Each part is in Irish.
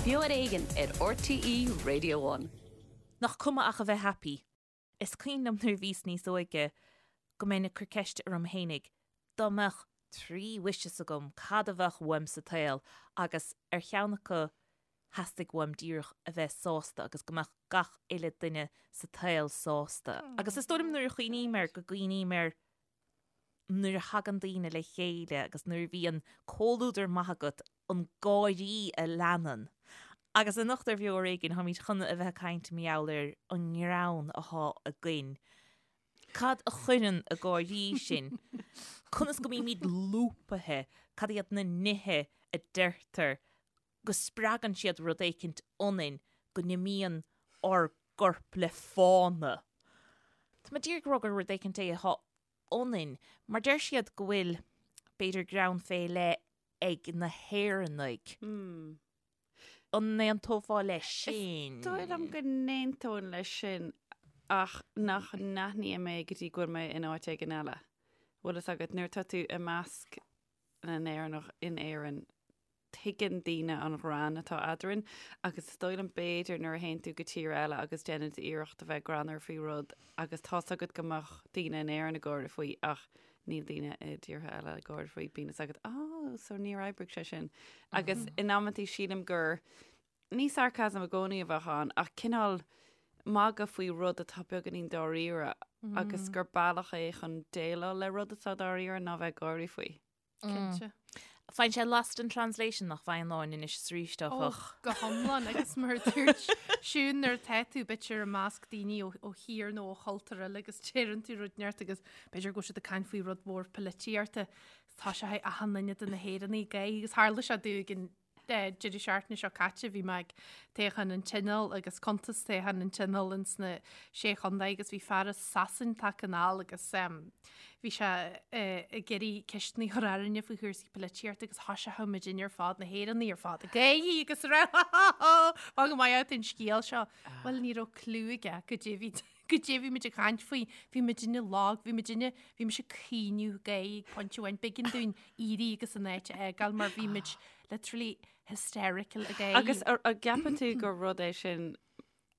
Beo ar Éigean ar RTÉ Radio One. Nach cuma ach a bheith happy. Is cuimhin liom nuair a bhíos níos óige go mbeinn ag cur ceiste orm fhéinig dá mbeadh 3 wishes agam cad a bheadh uaim sa tsaol agus ar cheann acu theastaigh uaim díreach a bheith sásta agus go mbeadh gach uile duine sa tsaol sásta. Agus is dóigh liom nuair a chuimhním air go gcuimhním ar nuair a thagann daoine le chéile agus nuair a bhíonn comhluadar maith agat, an gáirí a leanann. Agus anocht ar Bheo Ar Éigean, táimid chun a bheith ag caint mar gheall ar an ngreann atá againn. Cad a chuireann ag gáirí sinn? Conas go mbímid lúbaithe? Cad iad na nithe a deirtear go spreagann siad rud éicint ionainn, go n-imíonn ár gcorp le fána? Tá mé díreach ag rá gur rud éicint é atá ionainn, mar deir siad go bhfuil, b'fhéidir, greann fé leith ag na hÉireannaigh. An n-aontófá leis sin? Is dóigh liom go n-aontóinn leis sin ach nach n-aithním é go dtí go bhfuil mé in áit éigin eile. Bhfuil fhios agat, nuair atá tú i measc na nÉireannach in Éirinn, tuigeann daoine an ghreann atá eadrainn agus is dóigh liom b'fhéidir nuair a théann tú go tír eile agus déanann tú iarracht a bheith greannmhar faoi rud agus tá's agat go mbeadh daoine in Éirinn ag gáire faoi ach níl daoine i dtíortha eile ag gáire faoi, bíonn fhios agat, oh, so níor oibrigh sé sin. Agus in amantaí sílim gur ní sarcasm i gcónaí a bheadh ann ach cineál magadh faoi rud atá beagáinín dáiríre agus gur bealach é chun déileáil le rud atá dáiríre ná bheith ag gáirí faoi. Cinnte. Faigheann sé lost in translation nach bhfaigheann Áine anois is arís áfach. Ó, go hiomlán agus mar a dúirt Siún nuair atá tú b'fhéidir i measc daoine ó thír nó ó chultúr eile agus deireann tú rud inteacht agus b'fhéidir go bhfuil siad ag caint faoi rud mór polaitíochta tá sé achan duine de na hÉireannaigh ag gáirí agus tharla sé domh ag an deireadh seachtaine seo caite bhí mé ag toghchán an Tionóil agus cuntas toghchán an Tionóil ins na Sé Chontae agus bhí fear as Sasain tagtha anall agus bhí sé ag iarraidh ceisteanna a chur orainne faoi chúrsaí polaitíochta agus thoisigh muidinne ar fad, na hÉireannaigh ar fad, ag gáirí agus ag rá ha ha ha Fan go maith an scéal seo. Bhuel ní raibh clue aige goidé bhí goidé bhí muid ag caint faoi, bhí muidinne lag, bhí muidinne, bhí mise ag caoineadh ag gáirí ag pointe amháin, b'éigean dúinn éirí agus an áit a fhágáil mar bhí muid literally hysterical ag gáirí. Agus an gceapann tú gur rud é sin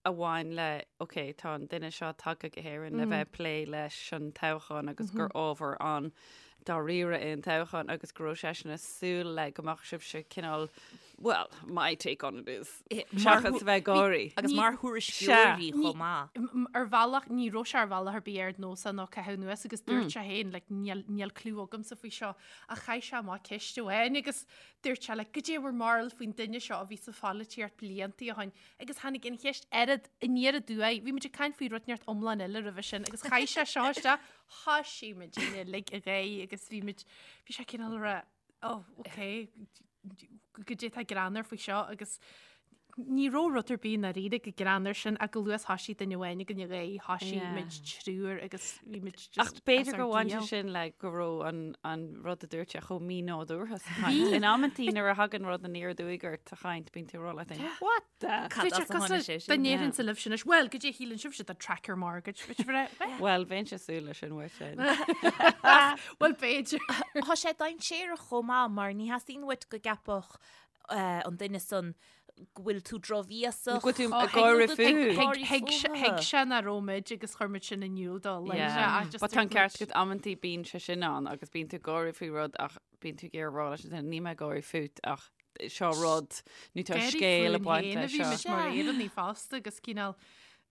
a bhain le, ok, tá an duine seo tagtha go hÉirinn le bheith ag plé leis an toghchán agus gur ábhar an-dáiríre é an toghchán agus go raibh seisean ag súil le go mbeadh sibhse cineál, well, my take on it is, seachas a bheith ag gáirí. Agus mar thuairisceoirí chomh maith. Ar bhealach, ní raibh sé ar bhealach ar bith ar nós ná caitheamh anuas agus dúirt sé féin, like, níl, níl clue agamsa faoi seo, ach chaith sé amach ceist amháin agus dúirt sé, like, goidé bhur mbarúil faoin duine seo a bhí sa pholaitíocht blianta ó shin agus tháinig an cheist oiread aniar aduaidh, bhí muid ag caint faoi rud inteacht iomlán eile roimhe sin agus chaith sé seo isteach, thoisigh muid uilig ag gáirí agus bhí muid, bhí sé cineál ag rá, oh, ok, goidé atá greannmhar faoi seo agus ní raibh rud ar bith i ndáiríre chomh greannmhar sin ach go luath thoisigh duine amháin againn ag gáirí, thoisigh muid triúr agus bhí muid just Ach b'fhéidir gur bhain sé sin le go raibh an, an rud a dúirt sé chomh mínádúrtha sa chaint. In amantaí nuair a thagann rud aniar aduaidh ort sa chaint, bíonn tú ag rá leat féin, What the? Cad as a tháinig sé sin? Dá ndéarfainnse libh sin anois, Bhuel, goidé a shíleann sibhse de tracker mortgage, bhí sibh ag rá, Bhuel, bheinnse ag súil leis sin uait féin. Bhuel, b'fhéidir. Tá sé dainséarach chomh maith mar ní theastaíonn uait go gceapfadh an duine san go bhfuil tú drochbhéasach. Go bhfuil tú ag gáire fúthu. Thuig sé nach raibh muid agus chuir muid sin in iúl dó. But tá an ceart agat amantaí bíonn sé sin ann agus bíonn tú ag gáire faoi rud ach bíonn tú ag iarraidh rá leis an duine níl mé ag gáire fút ach seo rud nó tá scéal ag baint leis seo. Bhí muid mar Éireannaigh fosta agus cineál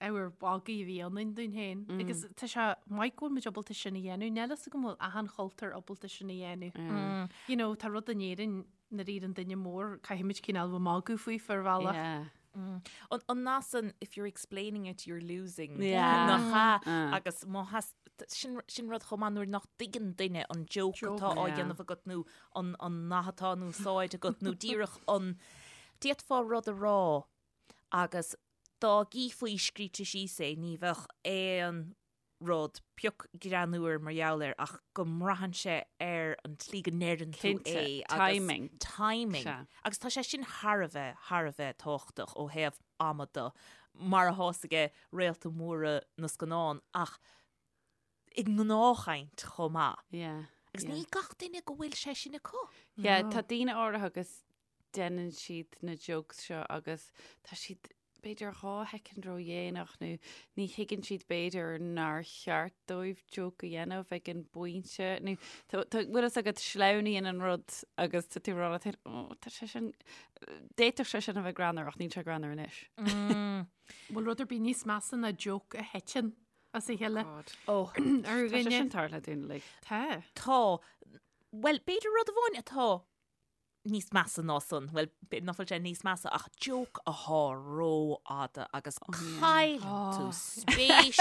ábhar magaidh a bhí ionainn dúinn féin. Agus tá sé maith go bhfuil muid ábalta sin a dhéanamh. Níl fhios agam an bhfuil achan chultúr ábalta sin a dhéanamh. You know, tá rud in Éirinn nuair a deireann duine mór, caithfimid cineál bheith magadh faoi ar bhealach. Yeah. An nath san, if you're explaining it, you're losing. Yeah. Nach ea? Agus má theas, sin, sin rud chomh maith nuair nach dtuigeann duine an joke atá á dhéanamh agat nó an, an nath atá in úsáid agat nó díreach an, d'fhéadfá rud a rá agus dá gcífí scríte síos é ní bheadh aon rud pioc greannmhar mar gheall air ach go mbraitheann sé ar an tslí go ndeireann tú Cinnte, é agus timing. timing. Sea. Agus tá sé sin thar a bheith, thar a bheith tábhachtach ó thaobh ama de, mar atá fhios aige réalta móra na scannán ach i ngnáthchaint chomh maith. Yeah. Agus yeah. ní gach duine go bhfuil sé sin acu. Yeah, tá daoine áirithe agus. deineann siad na jokes seo agus tá siad b'fhéidir 2 shoicind ródhéanach nó ní thuigeann siad b'fhéidir nár cheart dóibh joke a dhéanamh ag an bpointe nó tá bhfuil fhios agat sleamhnaíonn an rud agus tá tú ag rá leat féin "Ó, tá sé sin d'fhéadfadh sé sin a bheith greannmhar ach níl sé greannmhar anois. Bhfuil rud ar bith níos measa ná joke a thiteann as a chéile God. Ó, ar Tá sé dhuine. sin tarlaithe dúinn uilig. Tá. Tá. Bhuel, b'fhéidir rud amháin atá níos measa ná san, bhuel, b'fhéidir nach bhfuil sé níos measa ach joke athá rófhada agus cailleann tú spéis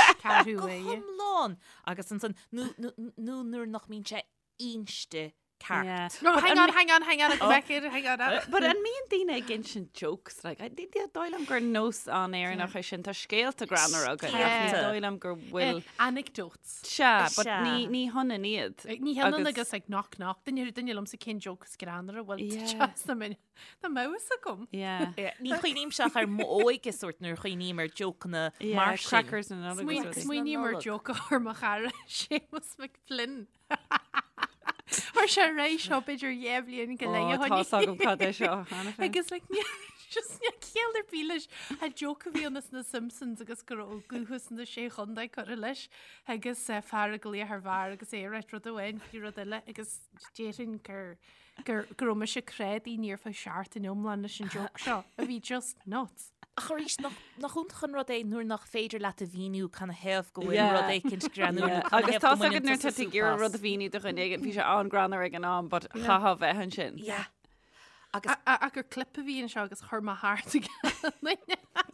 go hiomlán agus ansan nó nó nuair nach mbíonn sé inste ceart. No, hang on, hang on, hang on, go back here, hang on. But an mbíonn daoine ag insint jokes, like, ní dóigh liom gur nós an-Éireannach é sin, tá scéalta greannmhara againn, ach ní dóigh liom go bhfuil... Anecdotes. Sea, but ní ní hionann iad. Ní hionann agus like knock knock, duine duine liomsa cén joke is greannmhaire bhfuil yeah. na min na mouse agam. Yeah. Ní chuimhnímse ach ar m'óige sórt nuair a chuimhním ar jokeanna Yeah, mar sin. crackers na Nollag agus rudaí. Smaoiním ar joke a chuir mo chara Séamus McFlynn. Chuir sé ré seo b'fhéidir dhé bhliain go leith Ó, tá's agam cad é seo cheana féin. Agus like, ní- just níl ciall ar bith leis. An joke a bhí ann as na Simpsons agus go raibh dúchas na Sé Chontae curtha leis agus eh, fear ag glaoch ar bheár agus é ag ráit rud amháin faoi rud eile agus déarfainn gur gur go raibh mise creidí ní ar feadh seachtain iomlán leis an joke seo a bhí just nuts. Ach arís, nach nach iontach an rud é nuair nach féidir leat a mhíniú canathaobh go bhfuil Yeah. rud éicint greannmhar nó Yeah. canathaobh Agus go tá mbaineann agat nuair tusa tá tú ag súp iarraidh as. rud a mhíniú do dhuine éigin, bhí sé an-greannmhar ag an am, but chaithfeá bheith ansin. Yeah. Agus Ach gur clip a bhí anseo agus chuir mé thart ag duine.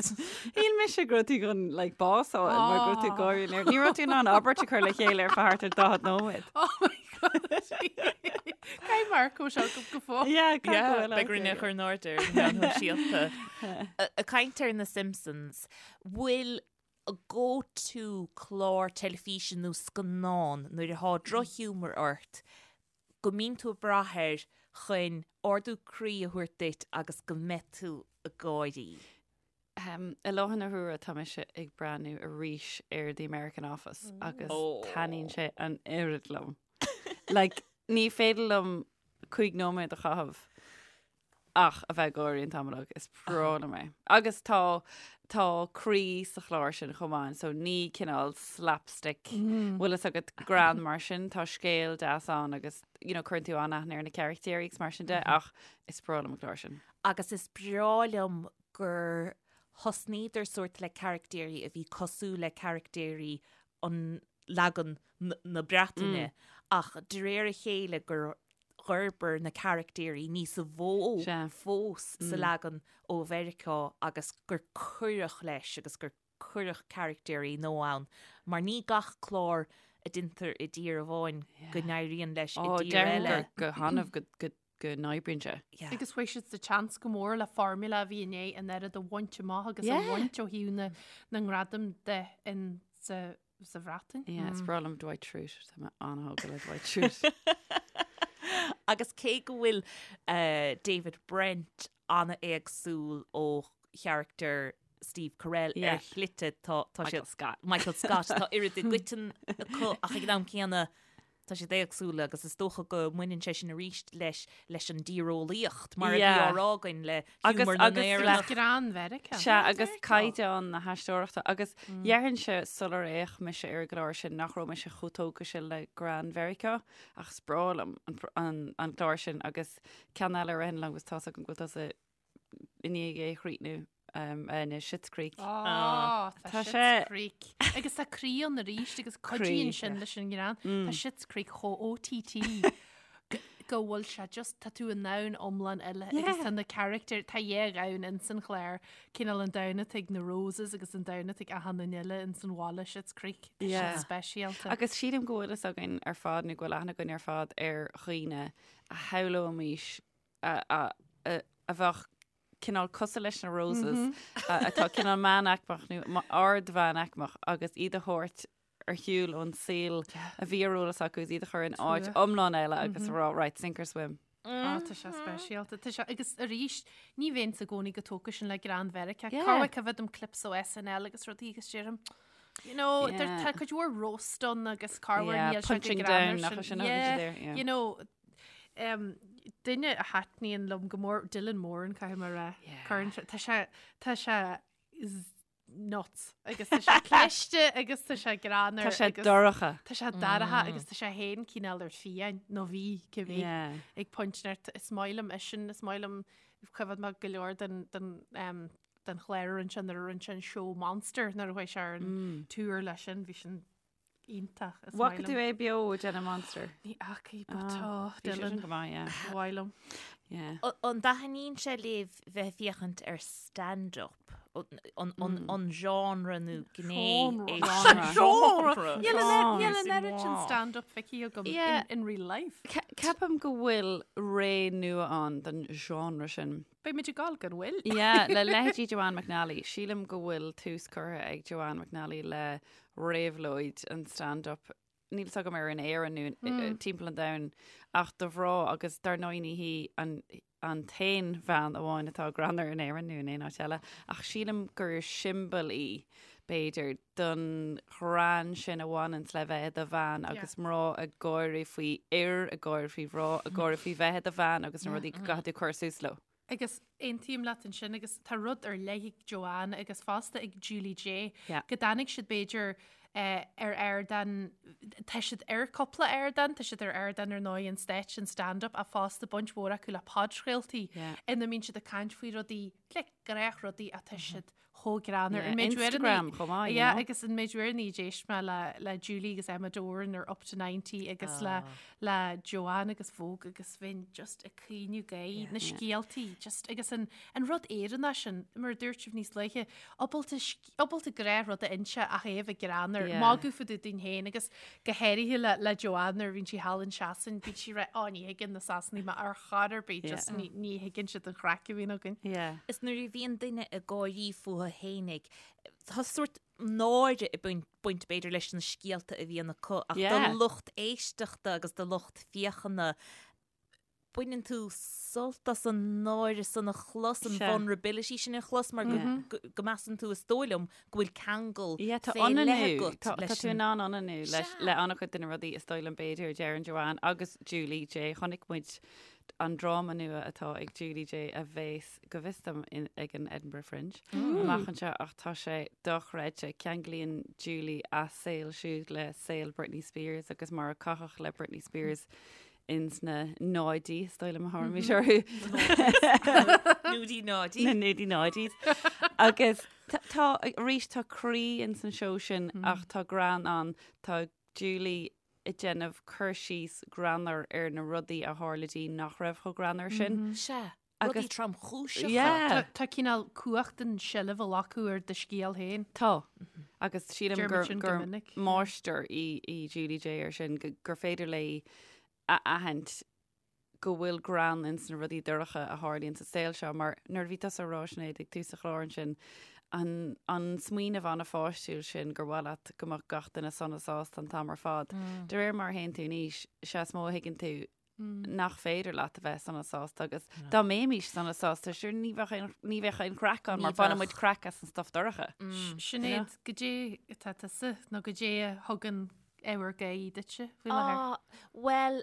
Shíl mise go raibh tú chun like, bás a fháil mar go raibh tú ag gáire léir. Ní raibh tú in ann abairt a chur le chéile ar feadh thart ar 40 nóiméad. Oh my God. Caithfidh Marco seo go go fóill. Yeah, caithfidh go bhfuil Beidh orainn é a chur in airde ar na meáin shóisialta. Ag caint ar na Simpsons, bhfuil go-to clár teilifíse nó scannán nuair atá drochghiúmar ort go mbíonn tú ag brath air chun ardú croí a thabhairt duit agus go mbeidh tú ag gáirí. I láthair na huaire tá mise ag breathnú arís ar The American Office agus taitníonn sé an oiread liom. Like, ní féidir liom 5 nóiméad a chaitheamh ach a bheith ag gáirí an t-am uilig. Is breá liom é. Agus tá tá croí sa chlár sin chomh maith, so ní cineál slapstick bhfuil fhios agat greann mar sin, tá scéal deas ann agus you know, cuireann tú an-aithne ar na carachtéirí agus mar sin de, ach is breá liom an clár sin. Agus is breá liom gur thosnaíodar sórt le carachtéirí a bhí cosúil le carachtéirí an leagan na Breataine ach de réir a chéile gur dh'fhorbair na carachtéirí níos mó fós sa leagan ó Mheiriceá agus gur cuireadh leis agus gur cuireadh carachtéirí nua ann mar ní gach clár a deintear i dtír amháin go n-éiríonn leis i dtír eile. Déarfainn go hannamh go go n-oibríonn sé. Agus fuair siad sa tseans go mór le formula a bhí i ndiaidh an oiread a bhaint amach agus a bhaint ó thaobh na na ngradam de in sa sa Bhreatain. Yeah, is breá liom Dwight Schrute, tá mé an-thógtha le Dwight Schrute. Agus cé go bhfuil David Brent an-éagsúil ó charachtar Steve Carell ar shlite tá Michael Scott. Michael Scott tá oiread i gcoiteann acu ach ag an am céanna tá siad éagsúla agus is dócha go mbaineann sé sin arís leis leis an dtíreolaíocht mar a bhí á rá againn le Agus hiúmar na agus le nÉireannach. Greann Mheiriceá. Sea, agus caighdeán na haisteoireachta. Agus déarfainnse sular fhéach mise ar an gclár sin nach raibh mise chomh tógtha sin le greann Mheiriceá ach is breá liom an an clár sin agus ceann eile a ritheann liom agus tá's agam go bhfuil tusa i ndiaidh é a chríochnú ná Schitt's Creek. Á, tá Tá Schitt's sé- Creek. Agus tá croí ann arís agus cuidíonn Croí, sin leis an ngreann. Tá Schitt's Creek chomh OTT go- go bhfuil sé just tá tú i ndomhan iomlán eile agus tá na carachtair tá dhá dhomhan ins an chlár cineál an domhan atá ag na Roses agus an domhan atá ag achan duine eile ins an bhaile Schitt's Creek. Tá Yeah. sin speisialta. Agus sílim go bhfuil fhios againn ar fad nó go bhfuil aithne againn ar fad ar dhaoine a shamhlóimis a bheadh cineál cosúil leis na Roses atá cineál meánaicmeach nó ard-mheánaicmeach agus iad a thabhairt ar shiúl ón saol a bhí ar eolas acu agus iad a chur in áit iomlán eile agus a rá right, sink or swim. Á, tá sé speisialta. Tá sé, agus arís, ní bheinnse i gcónaí chomh tógtha sin le greann Mheiriceá. Yeah. Corruair feicim clips ó SNL agus rudaí agus deirim, you know, Yeah. there- tá cuid mhór roast ann agus corruair Yeah, níl sé go punching greannmhar down, nach sin. sin a Yeah, there, yeah. you know, Duine a thaitníonn liom go mór, Dylan Moran, caithfidh mé a rá. Cuireann sé, tá sé, tá sé nuts agus tá sé cliste agus tá sé greannmhar. Tá sé dorcha. Tá sé dorcha agus tá sé féin cineál ar fiáin nó bhí cibé ag pointe inteacht. Is maith liom eisean, is maith liom choimhéad mé go leor den den um, den chlár a rinne sé nuair a rinne sé an seó Monster nuair a chuaigh sé ar an tour leis sin, bhí sin iontach. Is Bhfaca tú é beo ag déanamh Monster? Ní fhacaidh, but tá Bhí sé sin Dylan go maith, yeah. mhaith liom. Yeah. An dtaitníonn sé libh bheith ag féachaint ar stand-up? An, an, an genre nó gné é Genre. Genre. Níl an Genre. oiread sin stand-up feicthe agam Yeah. in, in real life. Ceapaim go bhfuil ré nua ann don genre sin. Beidh muid ag gabháil gan mhoill. Yeah, le leithéidí Joanne McNally. Sílim go bhfuil tús curtha ag Joanne McNally le réabhlóid an stand-up. Níl fhios agam ar in Éirinn nó timpeall an domhain ach do mhná agus dar ndóigh ní hí an an t-aon bhean amháin atá greannmhar in Éirinn nó in aon áit eile ach sílim gur siombail í b'fhéidir don ghreann sin a bhaineanns le bheith i do bhean agus mná ag gáirí faoi fhir, ag gáirí faoi mhná, ag gáirí faoi bheith i do bhean agus na rudaí go gcaithfidh tú cur suas leo. Agus aontaím leat ansin agus tá rud ar leith ag Joanne agus fosta ag Julie Jay Yeah. go dtáinig siad b'fhéidir eh, ar ardán, tá siad ar cúpla ardán, tá siad ar ardán ar ndóigh an stáitse an stand-up ach fosta baint mhór acu le podchraoltaí Yeah. ina mbíonn siad ag caint faoi rudaí, like, gnáthrudaí ach tá siad chomh greannmhar. Yeah, An méid uaireanna- Instagram chomh maith, you Yeah, know. agus an méid uaireanna a d'éist mé le, le Julie agus Emma Doran ar Up to 90 agus le, le Joanne agus Vogue agus bheinn just ag caoineadh gáire, na scéaltaí, just agus an, an rud Éireannach sin, mar a dúirt sibh níos luaithe, ábalta, ábalta gnáthrud a inse ach é a bheith greannmhar, Yeah. magadh fá dtaobh dínn féin agus go háirithe le, le Joanne nuair a bhíonn sí thall in Sasain, bíonn sí ag rá, "Ó, ní thuigeann na Sasanaigh mé ar chor ar bith, just Yeah. ní, ní thuigeann siad an chraic a bhíonn againn. Yeah. Is nuair a bhíonn duine ag gáirí fúthu fhéinig, tá sórt náire ag baint b'fhéidir leis na scéalta a bhíonn acu ach Yeah. do lucht éisteachta agus do lucht féachana baineann tú sult as an náire san a chlos, an Sea. vulnerability sin a chlos mar go, go, go measann tú is dóigh liom go bhfuil ceangal Yeah, tá fé leith ionannú, agat tá, tá leis tú an in ann ionannú leis, Sea. le an-chuid de na rudaí is dóigh liom b'fhéidir a deireann Joanne agus Julie Jay. Chonaic muid an dráma nua atá ag Julie Jay a bheas, go bhfios dom, in, ag an Edinburgh Fringe amach anseo ach tá sé dochreidte. Ceanglaíonn Julie a saol siúd le saol Britney Spears agus mar a caitheadh le Britney Spears ins na náidí, is dóigh liom a thabharfaimis orthu. Núdí náidí. Na núdí náidís. Agus tá, arís, tá croí ins an seó sin ach tá greann ann. Tá Julie ag déanamh cur síos greannmhar ar na rudaí a tharla di nach raibh chomh greannmhar sin. Sea, rudaí tromchúiseacha. Yeah. Tá cineál cumhacht an seilbh a ghlacadh ar do scéal féin. Tá. Agus sílim Deir gur, muid sin go gur minic. máistir í, í Julie Jay ar sin, go, gur féidir léi a aithint go bhfuil greann ins na rudaí dorcha a tharlaíonn sa saol seo, mar nuair a bhí tusa ag rá, Sinéad, ag tús an chláir ansin, an, an smaoineamh an-pháistiúil sin gur mhaith leat go mbeadh gach duine sona sásta an t-am ar fad. De réir mar a théann tú in aois, sea is mó a thuigeann tú nach féidir leat a bheith sona sásta agus dá mbeimis sona sásta, sure ní bheadh aon, ní bheadh aon chraic ann mar baineann muid craic as an stuff dorcha. Sinéad, goidé atá tusa nó goidé a thugann ábhar gáire duitse faoi láthair? Ah, bhuel,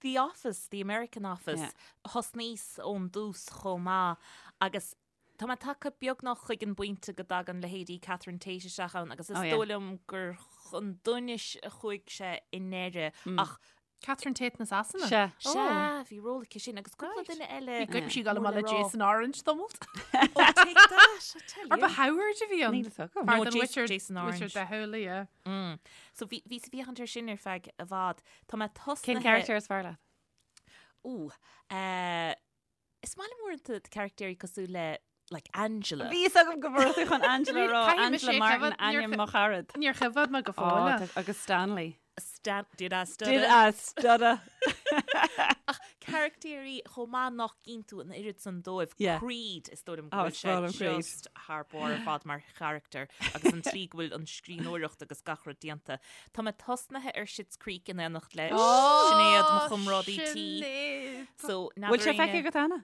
The Office, The American Office, Yeah. thosnaíos ón dtús chomh maith agus tá mé tagtha beagnach chuig an bpointe go dtagann leithéidí Catherine Tate isteach ann agus is Oh, yeah. dóigh liom gur chun donais a chuaigh sé i ndeireadh ach Catherine Tate na Sasana? Sea. Sea, bhí ról aici sin agus cúpla duine eile. Bhí goip sí ag dul mór amach le le rá. Jason Orange tamalt. Oh, take that, I tell Ar ba you. Howard a bhí ann? Níl a fhios agam. Fear No, den Jason- Witcher- Jason Orange. Witcher de Howley, yeah. Mm. So bhí bhí sa bhféachaint air sin ar feadh i bhfad. Tá mé tosnaithe... Cén character is fearr leat? Ooh, eh, is maith liom uaireanta caractéirí cosúil le like Angela. Bhí fhios agam go raibh tú chun Angela a rá, Caithfidh mise Angela é Martin, coimhéad, níor ainm cho- mo charad. Níor choimhéad mé go Ó, fóill. tá- agus Stanley. Stan did I stutter? Did I stutter? Ach caractéirí chomh maith nach gcíonn tú an oiread san dóibh. Yeah. Creed is dóigh liom go Oh, bhfuil is breá sé liom Creed. just thar barr ar fad mar charachtar agus an tslí go bhfuil an scríbhneoireacht agus gach rud déanta. Tá mé tosnaithe ar Schitt's Creek in éineacht le Sinéad, mo chomrádaí tí. Sinéad. So, Bhfuil sé feicthe agat cheana?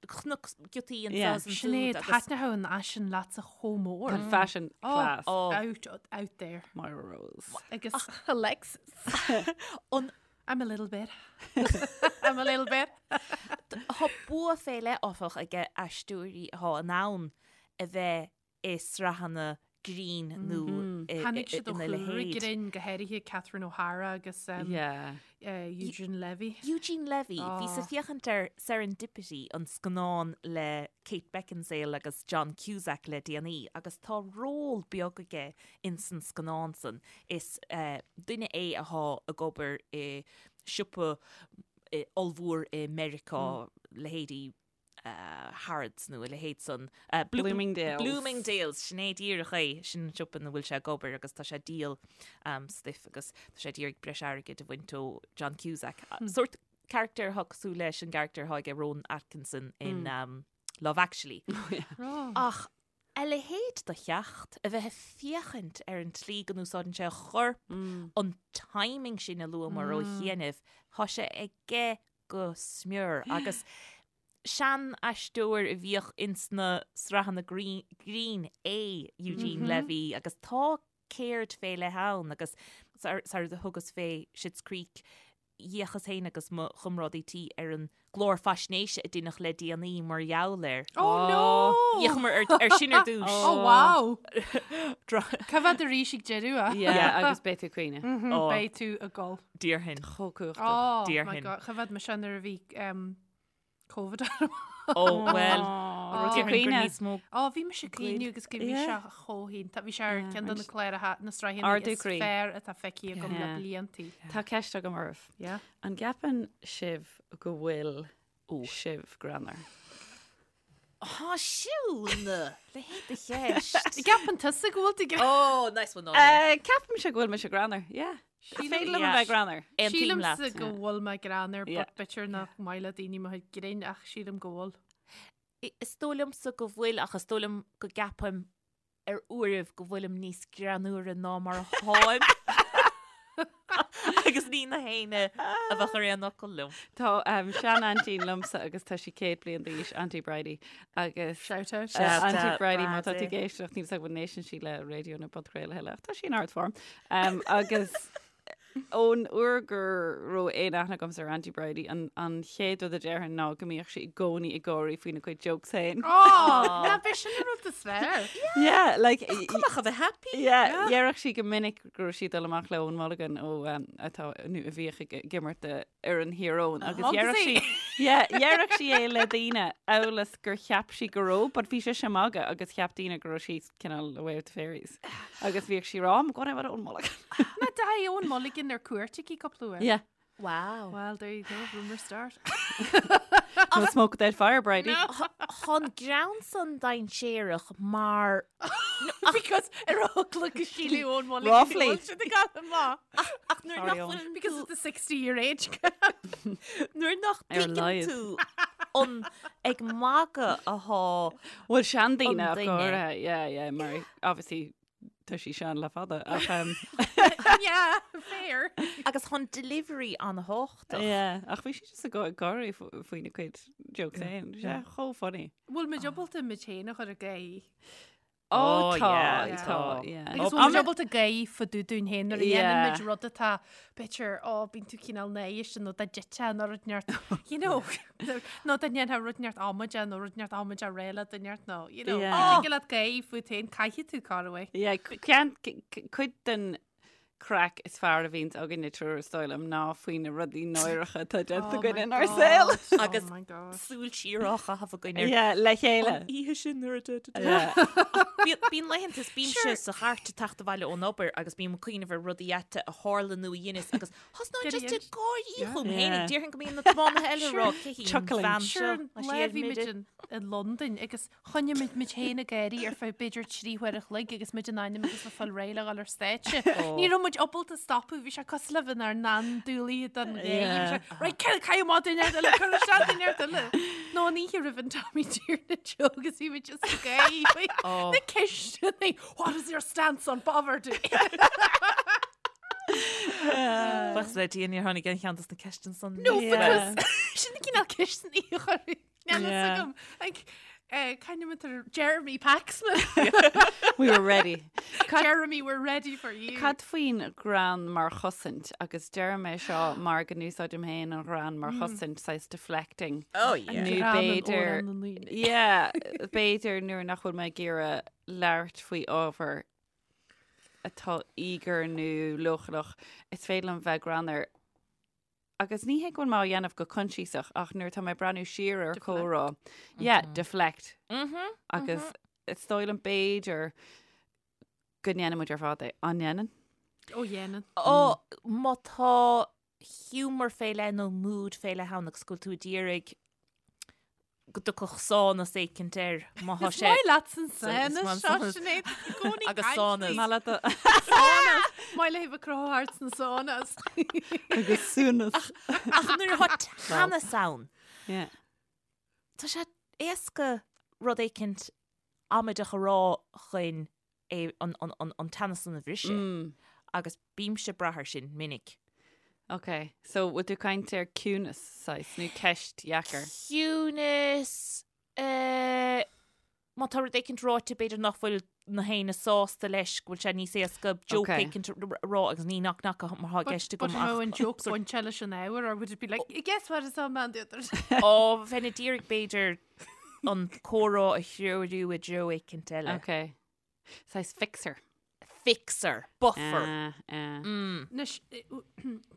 Chonac giotaí anseo Yeah. is ansiúd Sinéad, agus thaitneodh an fhaisean leatsa chomh mór. An fashion Oh, class. Oh. Out, out there. Moira Rose. Agus Alexis. an I'm a little bit. I'm a little bit. Tá bua fé leith, áfach, ag aisteoirí atá in ann a bheith i sraitheanna grinn nó Tháinig siad ó ina chúlra leithéid. grinn, go háirithe Catherine O'Hara agus Eugene Levy. Eugene Levy, bhíos ag féachaint ar Serendipity, an scannán le Kate Beckinsale agus John Cusack le déanaí, agus tá ról beag aige ins an scannán san. Is duine é athá ag obair i siopa ollmhór i Meiriceá, leithéidí Harrods nó a leithéid san. Bloomingdale's. Bloomingdale's, sin é díreach é, sin an siopa ina bhfuil sé ag obair agus tá sé ag díol stuif agus tá sé ag iarraidh breis airgid a bhaint ó John Cusack. Sórt carachtar atá cosúil leis an gcarachtar atá aige Rowan Atkinson in Love Actually. Ach a leithéid de theacht, a bheith ag féachaint ar an tslí go n-úsáideann sé a chorp, an timing sin a luamar ó chianaibh, tá sé aige go smior agus sean-aisteoir a bhíodh ins na sraitheanna grinn é Eugene Levy agus tá ceird fé leith ann agus sar a thugas fé Schitt's Creek d'fhéachas féin agus mo chomrádaí tí ar an gclár faisnéise a deineadh le déanaí mar gheall air. Oh no! D'fhéachamar ar sin ar dtús. Oh wow! Cá bhfad arís ag deireadh a? Yeah, agus beidh tú ag caoineadh. Beidh tú ag gol. Déarfainn. Chomh cumhachtach. Oh my Déarfainn. God, cá bhfad mise nuair a bhí um, Covid orm. Ó, bhuel, Raibh tú déarfainn gur caoineadh? níos mó. Ó, bhí mise ag caoineadh agus go bhí Yeah. sé chomh hiontach. Bhí sé ar Yeah, ceann de na agus cláracha, na sraitheanna ardú is croí. fearr atá feicthe agam le Yeah. bliantaí. Tá ceist agam oraibh. Yeah. An gceapann sibh go bhfuil sibh greannmhar? Tá Siún! Leithéid de cheist. Ceapann tusa go bhfuil tú greannmhar? Oh, nice one, Áine. Ceapaimse go bhfuil mise greannmhar, yeah. Is féidir liom a Yeah. bheith greannmhar. Aontaím leat. Sílimse go bhfuil mé greannmhar, Yeah. but b'fhéidir nach maith le daoine mo chuid grinn ach sílim go bhfuil. Is dóigh liomsa go bhfuil ach is dóigh liom go gceapaim ar uairibh go bhfuilim níos greannmhaire ná mar atáim. Agus ní na héinne a bheadh ar aon fhocal liom. Tá um, sean-aintín liomsa agus tá sí 100 bliain d'aois, Auntie Bridie, agus Shout out. Uh, Shout Auntie out, Bridie, má tá tú Bridie. ag éisteacht, níl a fhios agam an n-éisteann sí le raidió nó podchraoladh a thuilleadh, ach tá sí in ard-form. Um, agus ón uair go raibh aon aithne agamsa ar Auntie Bridie, an, an chéad rud a déarfainn ná go mbíodh sí i gcónaí ag gáirí faoina cuid jokes féin. Oh, ná b'é sin an rud is fearr. Yeah, like, Cuma ach a bheith happy. Yeah, déarfadh sí go minic go raibh sí ag dul amach le Eoin Mulligan ó um, atá nó a bhíodh ag ag imirt do fhoireann Thír Eoghain agus déarfadh sí yeah, déarfadh sí é le daoine amhail is gur cheap sí go raibh, but bhí sise ag magadh agus cheap daoine go raibh sí cineál away with the fairies. Agus bhíodh sí ag rá, I'm going out with Eoin Mulligan. Ná d'fhaigh Eoin Mulligan ar cuairt aici cúpla uair. Yeah. Wow. Well, there you go, rumour start. No smoke without fire, Bridie. Tá an greann san dainséarach mar Because ar eagla go sílfidh Eoin Mulligan Roughly. go bhfuil siad ag gabháil amach. ach nuair Sorry, nach Eoin. bhfuil Because of the 60 year age gap. nuair nach Ar a dtuigeann laghad. tú an ag magadh athá Bhuel seandaoine An ach duine. go háirithe, yeah, yeah, mar obviously tá sí sean le fada ach um, Yeah, fair. agus tá an delivery an-tábhachtach. yeah, ach bhí sí just ag gá- ag gáirí faoina cuid jokes féin. Sé chomh funny. Bhfuil muid ábalta muid féin a chur ag gáirí? Ó Oh, tá, yeah, tá, tá. yeah. Agus bhfuil muid ábalta gáirí fá dtaobh dúinn féin nuair a dhéanann muid rud atá b'fhéidir, ó, bíonn tú cineál náireach nó dá dtitfeá nó rud inteacht, you know, nó dá ndéanfá rud inteacht amaideach nó rud inteacht amaideach réidh le duine inteacht nó, you know, Yeah. tig leat gáirí fút féin, caithfidh tú corruair. Yeah, ceann, cuid den craic is fearr a bhíonns againne triúr is dóigh liom ná faoi na rudaí náireacha atá déanta Oh againn my inár God. saol. Agus Oh my God. súil siar á chaitheamh againn ar Yeah, le chéile. an oíche sin nuair a de- de- de- Yeah. Bíonn bíonn laethanta is bímse sa chairt ag teacht abhaile ón obair agus bím ag cuimhneamh ar rudaí ait a tharla nó a dheineas agus thosnóinn just ag gáirí chugam féin. Yeah. Déarfainn go mbíonn na tiománaithe eile ag rá cé hí an Chuckling. bhean seo. Sure, Tá sí lá ar bhí muid mire. in i Londain agus choinnigh muid muid féin ag gáirí ar feadh b'fhéidir 3 huair a chloig agus muid in ainm agus le fáil réidh le dhul ar stáitse. Ní raibh muid ábalta stopadh, bhí sé cosúil le bheith inár n-andúiligh don gháire. Bhí sé, Right, caith caith amach duine eile, cuir isteach duine eile. Nó an oíche roimh an Tommy Tiernan show agus bhí muid just ag gáirí faoi na ceisteanna, What is your stance on poverty? Buíochas le Dia níor tháinig aon cheann dos na ceisteanna san. No, Yeah. because sin na cineál ceisteanna a chuir Níl a fhios agam. Like, C'ainm Jeremy Paxman. We were ready. Jeremy, we're ready for you. Cad faoin ghreann mar chosaint agus deirim é seo mar go n-úsáidim féin an ghreann mar chosaint, saghas deflecting. Oh yeah. Nó b'fhéidir, yeah, b'fhéidir nuair nach bhfuil mé ag iarraidh labhairt faoi ábhar atá íogair nó leochaileach, is féidir liom bheith greannmhar. Agus ní hé go bhfuil mé á dhéanamh go coinsiasach ach nuair atá mé ag breathnú siar ar comhrá, yeah, deflect. Agus is dóigh liom b'fhéidir go ndéanann muid ar fad é. An ndéanann? Ó dhéanann. Ó, má tá humour fé leith nó mood fé leith ann agus go bhfuil tú ag iarraidh go dtiocfadh sánas éicint air má thá Is sé. maith leat an Is sánas maith seo, an sánas. Sinéad, i gcónaí Agus caint sánas. faoi. Maith leat a- Sánas! Maith léi bheith cruthú thart sna sánas. Agus súnas. Ach nuair atá teannas ann, Yeah. tá sé éasca rud éicint amaideach a rá chun é an, an, an, an teannas san a bhriseadh. Agus bímse ag brath air sin minic. Ok, so bhfuil tú ag caint ar ciúnas, saghas, nó ceist dheacair? Ciúnas, eh, má tá rud éicint ráite b'fhéidir nach bhfuil na héinne sásta leis, go bhfuil sé níos éasca joke Ok. éicint a rá agus ní knock knock mar atá i gceist But agam an raibh ach an joke bainte leis an ábhar or would it be like, guess what is on man the other Ó, bheinn ag iarraidh b'fhéidir an comhrá a threorú i dtreo éicint eile. Ok. Saghas fixer. Fixer, buffer. Ah, ah. Anois,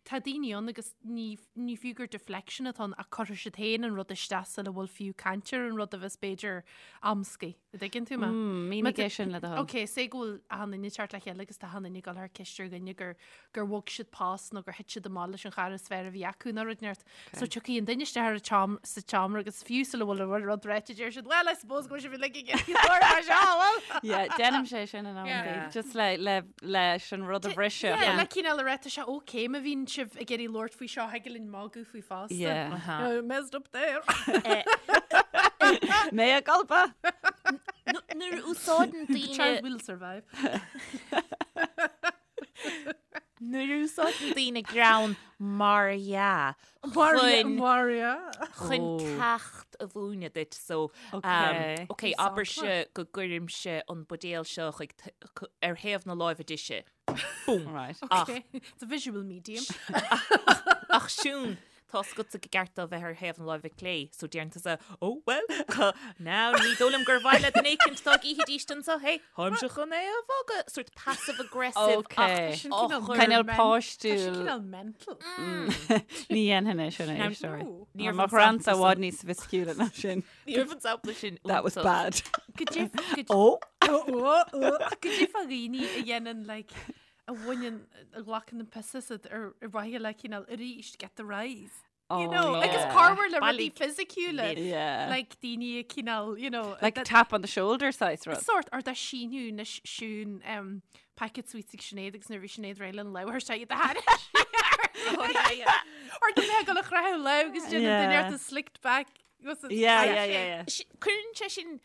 tá daoine ann agus ní, ní fiú gur deflection atá ann ach cuirfidh siad féin an rud isteach sula bhfuil fiú caint ar an rud a bheas b'fhéidir amscaí. An dtuigeann tú mé? Mm, mínigh é sin le do thoil. Ok, say go bhfuil achan duine ag teacht le chéile agus tá achan duine ag dul thar ceist ar dhuine gur, gur bhog siad post nó gur thit siad amach leis an chara is fearr a bhí acu nó rud inteacht. So tiocfaidh an duine isteach ar an tseom- sa tseomra agus fiú sula bhfuil an rud ráite deir siad, well, I suppose go bhfuil sibh uilig ag iarraidh labhairt fá seo, bhfuil? Yeah, déanaim sé sin in amantaí. Yeah. Just le, le, leis an rud a bhriseadh. Yeah, le cineál a rá, tá sé okay má bhíonn sibh ag iarraidh labhairt faoi seo, thig linn magadh faoi fosta. Yeah. Uh-huh. You know, messed up there. Mea culpa! Nuair a úsáideann The daoine child will survive. Nuair a úsáideann daoine greann mar dhea chun Mar dhea. chun Oh. ceacht a mhúineadh duit so Ok. ok abairse go gcuirimse an buidéal seo chuig t- c- ar thaobh na láimhe deise. Boom. Right. Ach Okay. It's a visual medium. ach Siún Tá 's agatsa go gceart dó bheith ar thaobh na láimhe clé, so deireann tusa, Oh, well, now ní dóigh liom gur mhaith le duine éicint dá gcífidís anseo, hey, táimse chun é a bhogadh, sort passive aggressive Ok. ach Sin á cineál chur- Cineál men- páistiúil. Tá sé cineál mental. Ní dhéanfainn é sin Now, a éisteoirí. no. Ní raibh Mo an ghreannsa sampla i bhfad níos soifisticiúla ná sin. Ní raibh an sampla sin That was iontach. bad. Go dtif- go Ó! Ó, ó, ó. Go dtif a dhaoine a dhéanann like a bhaineann, a ghlacann an piss asat ar mhaithe le cineál arís get the rise. You Oh, know, agus yeah. corruair le rudaí Bailigh fisiciúla. libh. Yeah. Like daoine a cineál, you know, Like that- tap on the shoulder saghas rud. Sort or dá síniú na Siún um, packet sweets ag Sinéad agus nuair a bhí Sinéad réidh lena labhairt sé iad a thairg. Oh, yeah, yeah. Or do mé go le chreathu le agus déanann Yeah. duine ort a slicked back. Was it- Yeah, yeah, yeah, yeah. Cuireann sé sin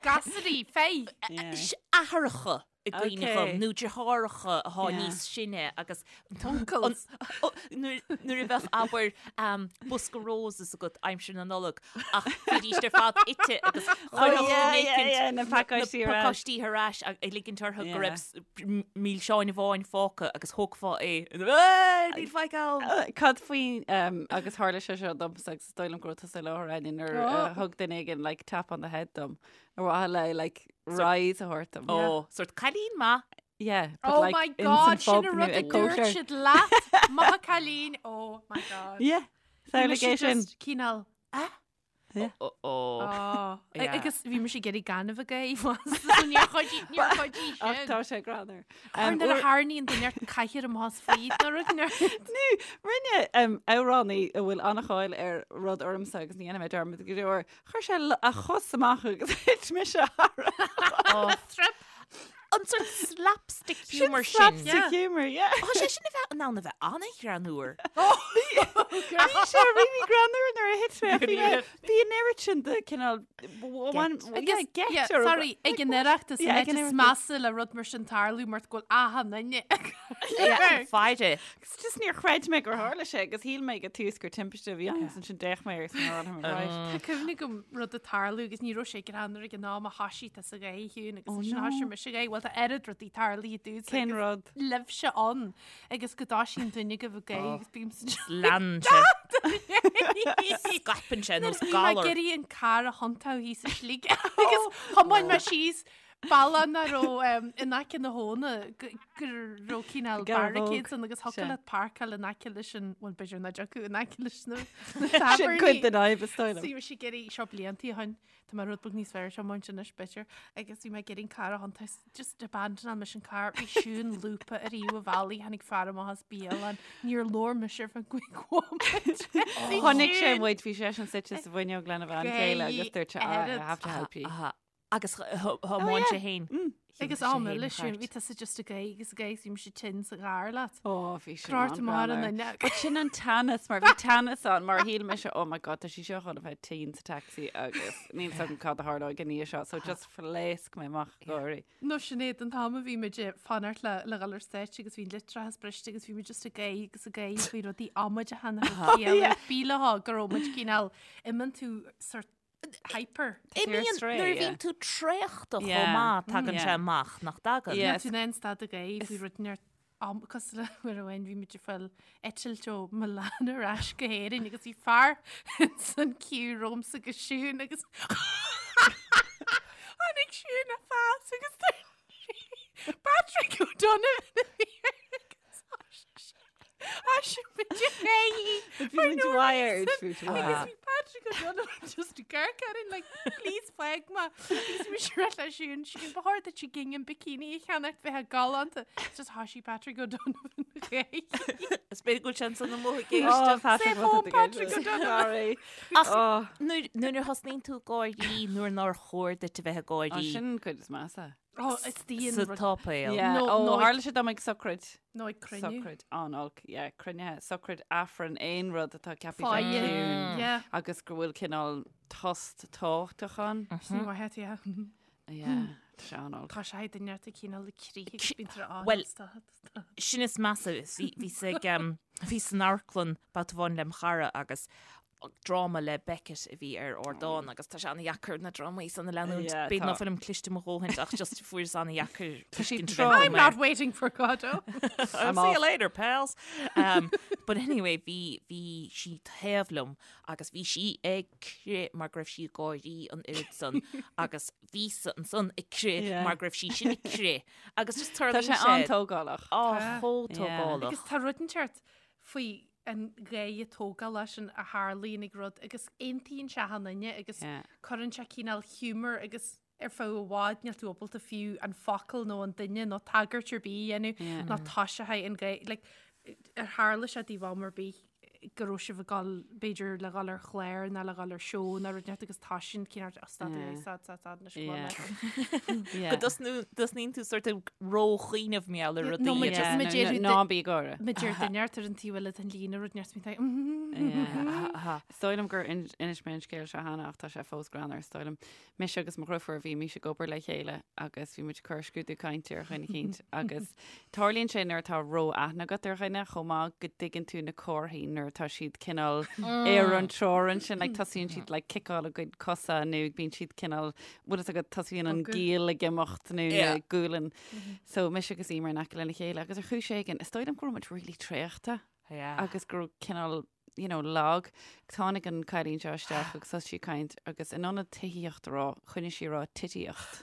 Gasraí, fé. Yeah. athracha i gcuimhne Okay. dhom, nó deartháireacha atá Yeah. níos sine agus Uncles. An- ó, nuair nuair a bheadh abair um, bosca roses agat aimsir na Nollag ach bhídís ar fad ite agus chuirfeadh Oh, yeah, duine yeah, éicint yeah, na pacáistí ar ais. pacáistí ar ais ag ag ligint orthu go Yeah. raibh s- m- milseáin amháin fágtha agus thógfá é. "Ey, Níl faic ann! Cad faoi um, agus tharla sé seo domsa agus is dóigh liom go raibh tusa i láthair Áine nuair Oh. uh, thug duine éigin like tap on the head dom. Ar mhaithe le like rise a thabhairt dom. Ó, sort cailín maith. Yeah, but Oh like my in san God, sin phub a nó rud a ag dúirt cóisir. siad leat. Maith cailín. Oh my God. Yeah, Bhí mise samhlaigh é sin. just cineál, ah? Yeah. Ó, ó. Oh. Yeah. Agus bhí mise ag iarraidh gaineamh a ghaibh so níor chuidigh níor chuidigh Ach sin. tá sé greannmhar. Ar Um, nuair a uair- tharraingíonn duine ort cathaoir amach as faoi nó rud nó. Nó, rinne um, amhránaí a bhfuil an-cháil ar rud ormsa agus ní dhéanfaidh mé dearmad go deo air, chuir sé a chos amach agus thit mise thar. Ó, Trip. An sort slapstick humour sin. Slapstick humour, yeah. Tá sé sin a bheith in ann a bheith an-ghreannmhar. Bhí sé really greannmhar nuair a thit mé ach bhí mé- bhí an oiread sin de cineál Agus, yeah, sorry, ag an Oireachtas Yeah, ag an an áit is Oireachtas. measa le rud mar sin tarlú mar go bhfuil achan duine. Faire. Agus just níor chreid mé gur tharla sé agus shíl mé ag tús gur timpiste a bhí ann agus ansin d'fhéach mé air agus mé right. Tá cuimhne agam rud ag tarlú agus ní raibh sé greannmhar ag an am a thoisigh tusa ag gáire a Shiún agus Oh ansin no. thoisigh mise ag gáire. Bhuel tá oiread rudaí tarlaithe domhsa Cén agus rud? libhse ann agus go dtoisíonn duine agaibh ag gáire agus bímse Leanann sé. Scaipeann sé nós Bhí mé ag galar. iarraidh an carr a thiontú thíos sa slí agus thiomáin mé síos bealach nach raibh in aice na habhna go raibh cineál barricades ann agus thiocfadh leat páirceáil in aice leis an, bhuel b'fhéidir nach dtiocfadh in aice leis na Sin cuid tábhairní. den fhadhb is dóigh liom. Bhí mise ag iarraidh, seo bliantaí ó shin, tá mé rud beag níos fearr ar an tiomáint anois b'fhéidir, agus bhí mé ag iarraidh an carr a thiontú, just abandonáil mise an carr, bhí Siún lúbtha ar thaobh an bhealaigh, tháinig fear amach as bialann, níor labhair mise ar feadh cúig bhomaite. Chonaic sé muid, bhí seisean suite sa bhfuinneog lena bhean chéile agus dúirt sé, "Ah, I have to help you. Agus thiomáin sé féin. Agus am eile sin, bhí tusa just ag gáire agus ag gáire bhí mise tinn sa gcarr leat. Ó, bhí sin Cráite mar an an-ghreannmhar. duine. But sin an teannas, mar bhí teannas ann, mar shíl mise, oh my god, tá sí seo chun a bheith tinn sa taxi agus níl 's agam cad a tharlóidh i ndiaidh seo, so just phléasc mé amach ag gáirí. Nó Sinéad, an t-am a bhí muid ag fanacht le le dhul ar stáitse agus bhí an litreachas briste agus bhí muid just ag gáire agus ag gáire faoi rudaí amaideacha nach raibh ciall ar bith leo go raibh muid cineál, imíonn tú sort hyper. Imíonn nuair a bhíonn tú traochta chomh maith, tagann sé amach, nach dtagann? Níl tú in ann stad ag gáire faoi rud inteacht cosúil le uair amháin bhí muid ag fáil eitilt ó Milan ar ais go hÉirinn agus bhí fear san queue romhamsa agus Siún agus tháinig Siún a phas agus Patrick O'Donovan a bhí air agus thoisigh muid ag gáire Bhí muid wired, bhí muid wired. Agus bhí Patrick O'Donovan just ag amharc orainn like, please fág mé. Agus bhí mise ag rá le Siún, Siún, ba chóir duit gingham bikini a cheannacht bheifeá galánta. It's just thoisigh Patrick O'Donovan ag gáire. Is b'fhéidir go bhfuil sé ansan amuigh ag Oh, éisteacht. Patrick, Say what home, did Patrick the O'Donovan. Sorry. Ach Oh, nuair nuair a thosnaíonn tú ag gáirí nuair nár chóir duit a bheith ag oh, gáirí sin cuid is measa. Oh, is dian sa rud- tsáipéal. Yeah. No, Ó, no, tharla sé dom ag sochraid. Nó ag cruinniú. Sochraid an-olc, yeah, cruinnithe, sochraid, Aifreann, aon rud atá ceaptha Fáidhe. bheith ciúin Yeah. agus go bhfuil cineál tost tábhachtach ann. Sin mhaith yeah. Yeah, tá sé an-olc. Tá sé duine ar cineál le crith agus bíonn tú á Well, stad, stad. Sin is measa, bhí bhí sa ag, bhí san amharclann babhta amháin lem chara agus dráma le Beckett a bhí ar ardán agus tá sé an-dheacair na drámaí san a leanúint. Yeah, B'fhéidir tá. ná fuilim cliste mo dhóthain ach just fuaireas an-dheacair Tá sí tuiscint a trom. bheith I'm agam not air. waiting for Godot. I'll see you later, pals. Um, but anyway, bhí bhí sí taobh liom agus bhí sí ag crith mar go raibh sí ag gáirí an oiread san agus bhíosa ansan ag crith Yeah. mar go raibh sí sin ag crith agus just Tá tarlaíonn sé sé an-tógálach. Á, Tá. chomh Yeah. tógálach. Agus tá rud inteacht faoi an gáire tógálach sin a tharlaíonn ag rud agus aontaíonn sé achan duine agus Yeah. cuireann sé cineál humour agus ar feadh i bhfad níl tú ábalta fiú an focal nó an duine nó tagairt ar bith a dhéanamh Yeah. nó tá sé an gáire like, ar tharla sé daoibh am ar bith go raibh sibh ag dul b'fhéidir le dhul ar chlár nó le dhul ar seó nó rud inteacht agus tá sin cineál oh, stad Yeah. stad stad stad anois Yeah. go Yeah. Go dtosnaíonn tú sort of róchuimhneamh mar gheall ar Yeah, rudaí no, agus- Yeah, ma no, deir no, ná bí ag gáire. Ma deir duine ar an taobh eile den líne rud inteacht bíonn tú Yeah. Aha. Is dóigh liom gur inis mé an scéal seo cheana ach tá sé fós greannmhar is dóigh liom. Mise agus mo dheirfiúr bhímís ag obair le chéile agus bhí muid ag cur scrúdú cainte ar dhuine eicínt agus tarlaíonn sé nuair atá ró-aithne agat ar dhuine chomh maith go dtuigeann tú na comharthaí nuair atá siad cineál ar an teorainn sin like tosaíonn siad like ciceáil a gcuid cosa nó bíonn siad cineál bhfuil fhios agat tosaíonn an Bogadh. giall ag imeacht nó na Yeah. gualainn. So mise agus Emer in aice lena chéile agus ar chúis éigin is dóigh liom go raibh muid really traochta. Yeah. agus go raibh cineál you know, lag. Tháinig an cailín seo isteach agus thosaigh sí ag caint agus in ionad tithíocht a rá, choinnigh sí ag rá titíocht.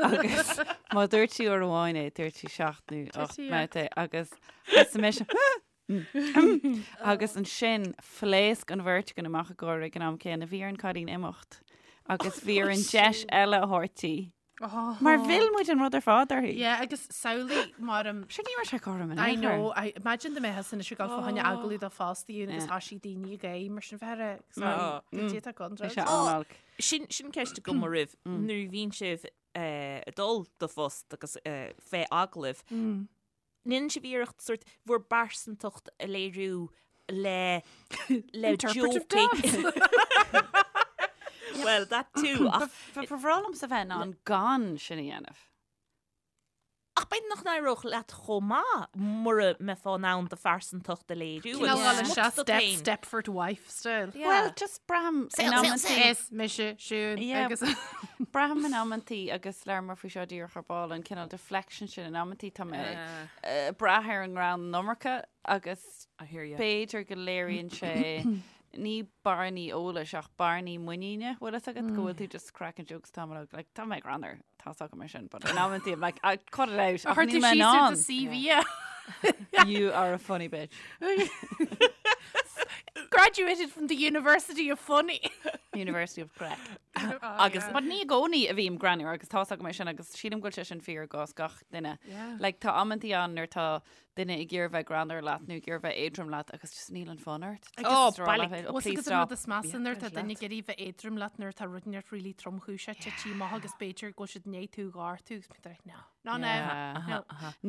Agus má dúirt sí uair amháin é, dúirt sí seacht nó ocht Titíocht. mbabhta é agus thosaigh mise agus ansin phléasc an bheirt againn amach ag gáire ag an am céanna. Bhí ar an cailín imeacht agus bhí orainn deis eile a thabhairt di. Mar mhill muid an rud ar fad uirthi. Yeah, agus samhlaigh mar um, Sure ní raibh sé cothrom in I aon chor. know, I imagine dá mbeifeá anois ag dul fá choinne agallamh do phost agus Yeah. tá sí daoine ag éirí mar sin bheith ar tá Bhí sé an-olc. Sin sin ceist agam oraibh nuair a bhíonn sibh eh, ag dul do phost agus eh, fé agallamh. Ndéanann sibh iarracht sort bhur bpearsantacht a léiriú le le Interpretive joke Well, that too. Ach Ba bhreá liomsa bheith in ann gan sin a dhéanamh. Ach b'fhéidir nach n-éireodh leat chomh maith mura mbeifeá in ann do phearsantacht a léiriú Cineál agus dul smut isteach duit step, féin. Stepford wife style. Yeah. Well, just braithim in Saol, saol, amantaí. saol. Is mise Siún Yeah. agus Braithim in amantaí agus labhramar faoi seo díreach ar ball an cineál deflection sin in amantaí tá mé ag brath ar an ngreann an iomarca agus I hear you. b'fhéidir go léiríonn sé ní bearnaí eolais ach bearnaí muiníne bhfuil fhios agat go bhfuil tú just cracking jokes tamall ó like tá mé greannmhar tá fhios agam é sin but in amantaí I'm like I cut it out ach Chuir níl tú mé in síos ar ann. do CV é. You are a funny bitch. Graduated from the University of Funny. University of Craic. Agus But ní i gcónaí a bhím greannmhar agus tá fhios agam é sin agus sílim go bhfuil sé sin fíor i gcás gach duine. Yeah. Like tá amantaí ann nuair tá duine ag iarraidh bheith greannmhar leat nó ag iarraidh bheith éadrom leat agus just níl an fonn ort. Oh, Just rá bailí. leat, oh, Bhfuil please agus an rud stop. is measa nuair tá Yeah, duine ag iarraidh bheith éadrom leat nuair atá rud inteacht really tromchúiseach tite amach agus b'fhéidir go bhfuil siad i ndiaidh tú a ghortú agus bíonn tú like, no, no, no, Yeah. no.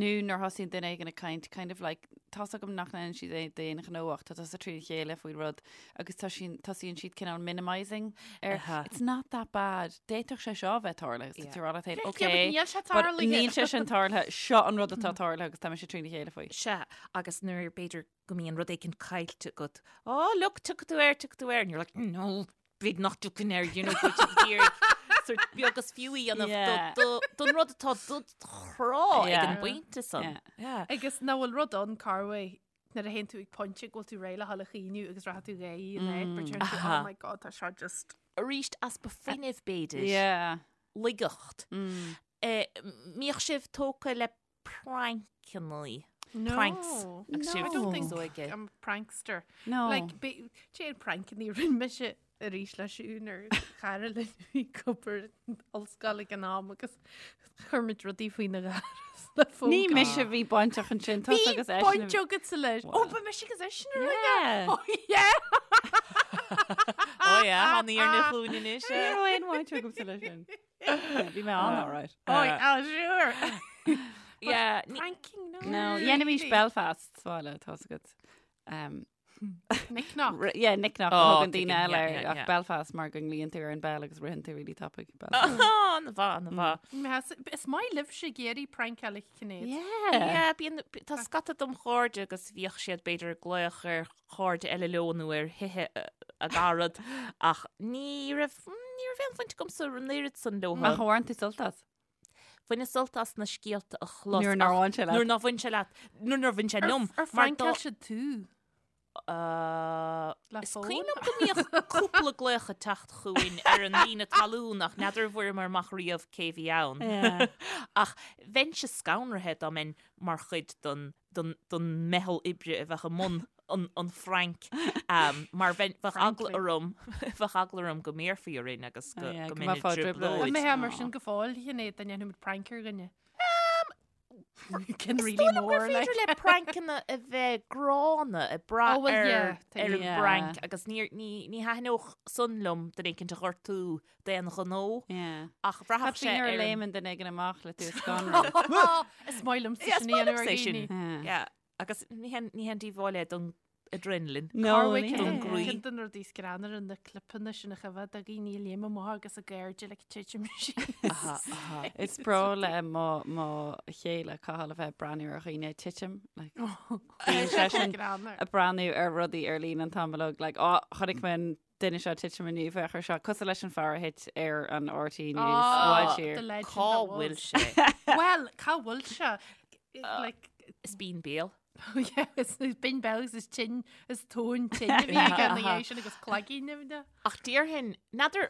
Nó nuair thosaíonn duine éigin ag caint kind of like tá fhios agam nach ndéanann siad é d'aon ghnó ach tá tusa trína chéile faoi rud agus tá siad tosaíonn siad cineál minimising ar Aha. it's not that bad. D'fhéadfadh sé seo a bheith tarlaithe agus tá tú ag rá leat féin, Yeah, but okay, níl sé but tarlaithe. níl sé sin tarlaithe, seo an rud atá tarlaithe agus tá mise trína chéile faoi. Sea, agus nuair b'fhéidir go mbíonn rud éicint caillte agat, oh look, tiocfaidh tú air, tiocfaidh tú air, and you're like, no, b'fhéidir nach dtiocfainn air, you know, go bhfuil tú ag iarraidh sort beag is fiú a dhéanamh Yeah. do- do- don rud atá dod chrá ag Yeah. an bpointe san. Yeah. Yeah. Agus nach bhfuil rud ann Carway nuair a théann tú ag pointe go bhfuil tú réidh le dhul a chaoineadh agus rachaidh tú réidh in áit, but you're like, Aha. oh my god, tá seo just... Arís easpa fuinnimh b'fhéidir. Yeah. Laigeacht. Eh, Mbíodh sibh tógtha le prancannaí. No. Pranks. Agus sibh I don't think níos óige. I'm a prankster. No. Like, be- Cén prankannaí a rinne mise arís le Siún ar cara linn a bhí ag obair in ollscoil ag an am agus chuir muid rudaí faoina dhoras le fógra. Ní mise a bhí bainteach ansin, tusa Bhí agus eisean. baint agatsa leis. Ó, ba mise agus eisean a rinne. Yeah. Oh, yeah. Oh yeah, tháinig ar na glúine anois. Ní raibh aon bhaint agamsa leis sin. Yeah, Bhí mé ann, all right. Oh, yeah, sure. Yeah, ní- Pranking, no. No, dhéanaimis Belfast sa bhaile, tá fhios agat. Um, Knick knock. Yeah, knick knock Oh, a thugann daoine tuigim, eile yeah, air, yeah, ach yeah. Belfast mar go nglaonn tú ar an bell agus ritheann tú really tapaidh Belfast. Oh, an-mhaith, an-mhaith. Meas- Is maith libhse ag iarraidh prankáil a Shinéad. Yeah. Yeah, bíonn tá scata dom chairde agus bhíodh siad b'fhéidir ag glaoch ar chairde eile leo nó ar thithe a gcarad ach ní raibh ní raibh aon bhaint agamsa an oiread san leo. Ach ar bhain tú sult as? Bhaineas sult as na scéalta a chlos Nuair nár ach bhain sé leat. Nuair nár bhain sé leat. Nuair nár bhain sé liom. Ar mar phrankáil siad tú? Uh, Le Is fón? cuimhin liom go mbíodh cúpla glaoch ag teacht chugainn ar an líne talún ach n'fheadar an bhfuaireamar amach riamh cé bhí ann. Yeah. Ach bheinnse scanraithe dá mbeinn mar chuid don, don, don meitheal oibre a bheadh i mbun an, an phrank um, mar bheinn, bheadh eagla Frankly. orm, bheadh eagla orm go mbéarfaí orainn agus go, Oh, yeah, go go mbeinn i mbeifeá i dtrioblóid. dtrioblóid. An mbeifeá mar sin go fóill, Shinéad, dá ndéanfadh muid prank ar dhuine? Cin Is really dóigh liom gur mór, like. féidir le prancanna a bheith gránna ag brath Oh, well, ar yeah, ar an yeah. bprank agus ní ní ní thaitneodh san liom duine éicint a ghortú d'aon ghnó Yeah. ach bhraithfeadh Cad sé faoi nuair a ar an léimeann duine éigin amach le tú a scanrú? Is maith liomsa Yeah, is sin maith a dhéanamh liomsa ar é sin. dhaoine. Yeah. Yeah, agus ní haon ní haon díobháil é don adrenaline. No, Carway ní don hea. gcroí. Ceann de na rudaí is greannmhaire na clipeanna sin a choimhéad do dhaoine a léim amach agus a gcairde like titim síos. Aha, aha. Is breá le mo mo chéile Cathal a bheith ag breathnú ar dhaoine ag titim like, bíonn seisean Greannmhar. ag breathnú ar rudaí ar líne an t-am uilig like, oh, chonaic mé an duine seo titim inniu féach ar seo cosúil leis an fear a thit ar an RTÉ News Oh, bhfuil siar. the legend Cá that bhfuil was. sé? Well, cá bhfuil sé? Like, Is bíonn béal. Yeah, is binn béal agus is tinn is tóin tinn a bhí aige ina dhiaidh sin agus cloigín nimhne. Ach déarfainn, n'fheadar,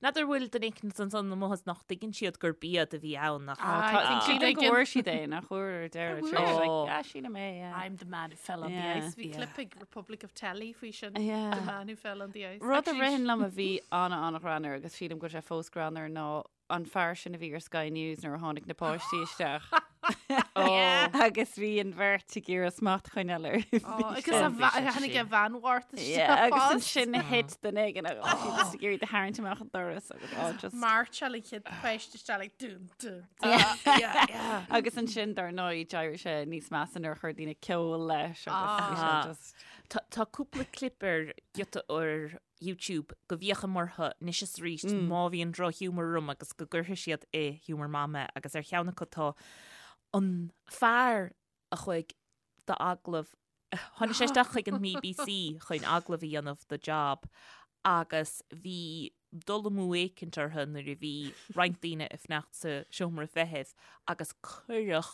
n'fheadar bhfuil duine éicint ansan amuigh is nach dtuigeann siad gur iad a bhí ann ach Ah, I think Sílim siad go bhfuair siad é nach bhfuair ar deireadh. Bhfuair. Sure, like, Oh. ah, sílim é, yeah. I'm the man who fell on the Yeah. ice. Bhí Yeah. clip ag Republic of Telly faoi sin. Yeah. The man who fell on the ice. Rud a Actually, ritheann liom a bhí an-an-ghreannmhar agus sílim go bhfuil sé fós greannmhar ná an fear sin a bhí ar Sky News nuair a tháinig na páistí isteach. Agus bhí an bheirt ag iarraidh smacht a choinneáil air. Agus tháinig a bhean mharbh isteach. Agus ansin thit duine éigin agus bhí siad ag iarraidh tarraingt amach an doras agus oh, just. Mairseáil an chéad pháiste isteach like dún dún. Agus ansin dar ndóigh d'éirigh sé níos measa nuair a chuir daoine ceol leis agus bhí sé just. Tá cúpla clip ar giota ar YouTube go bhféachaim orthu anois is arís má bhíonn drochghiúmar orm agus go gcuirfidh siad i giúmar maith mé agus ar cheann acu tá an fear a chuaigh d'agallamh, tháinig sé isteach chuig an mBBC chun agallamh a dhéanamh do job agus bhí dul amú éicint orthu nuair a bhí roinnt daoine ag fanacht sa seomra feithimh agus cuireadh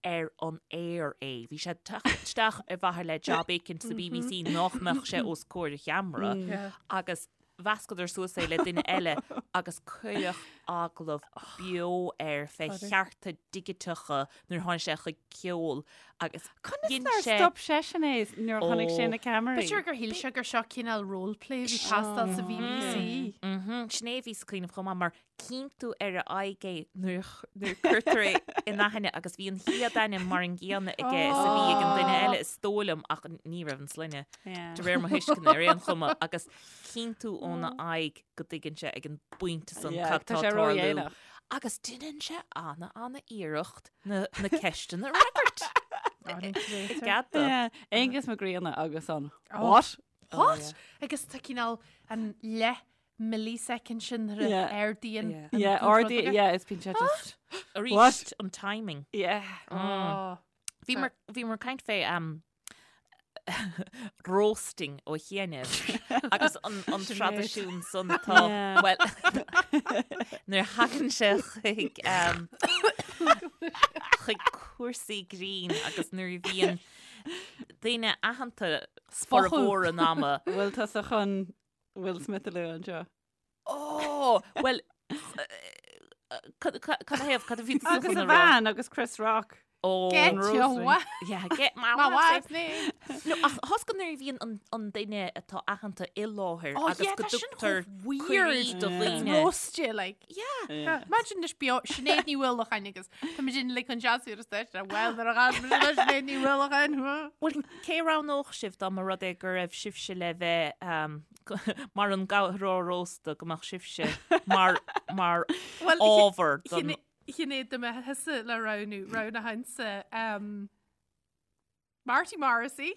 ar an aer é. Bhí sé ag teacht isteach ar mhaithe le job éicint sa BBC nach mbeadh sé os comhair an cheamara agus mheascadar suas é le duine eile agus cuireadh agallamh beo air fé chearta digiteacha nuair a tháinig sé chuig ceol agus Conas dhein nár sé stop seisean é nuair a chonaic sé Ó. na ceamaraí? B'fhéidir gur shíl sé gur seo cineál roleplay a bhí ag teastáil sa BBC. Sin é a bhíos ag cuimhneamh chomh maith mar Cíonn tú ar a aghaidh é nuair a cuirtear é in aithne agus bhí an chéad ainm mar an gcéanna aige is a bhí ag an duine eile is dóigh liom ach ní raibh an sloinne de réir mo thuisceana ar aon chuma agus cíonn tú óna aghaidh go dtuigeann sé ag an bpointe san cad tá ag tarlú agus déanann sé ana ana iarracht na na ceisteanna a fhreagairt. I gcead dó. Aonghus Mac Grianna agus an What? What? Agus tá cineál an leath millisecond sin nuair a Yeah. ardaíonn Yeah. an Yeah, rud ardaí, aige. yeah, is bíonn sé just Arís What? an timing. Yeah. Oh. Bhí mar bhí mar caint fé um, roasting ó chianaibh agus an, an traidisiún san atá Yeah. well nuair a thagann sé chuig um, chuig cúrsaí grinn agus nuair a bhíonn daoine aitheanta formhór an ama Bhfuil tusa chun Will Smith a lua anseo. Ó, bhuel, cad thaobh, cad a bhí tusa Agus chun a a rá? bhean agus Chris Rock. Ó, Get an your roasting. wife. yeah, get my My wife. wife's name. No, ach thost go nuair a bhíonn an, an duine atá aitheanta i láthair Oh, agus yeah, go tá sin dtugtar chomh weird. cuirí do Yeah. dhaoine. Roast you, like. Yeah. Yeah. Imagine anois beo Sinéad Ní Uallacháin agus tá muid uilig chun seasamh ar an stáitse, Well, nuair a chas muid le Sinéad Ní Uallacháin. Bhuel, cé a roghnódh sibh dá mba rud é go raibh sibhse le bheith um, mar an gcabhróir rósta go mbeadh sibhse mar mar Well, ábhar don Sinéad dá mbeadh thusa le roghnú, roghnóchainnse um, Marty Morrissey,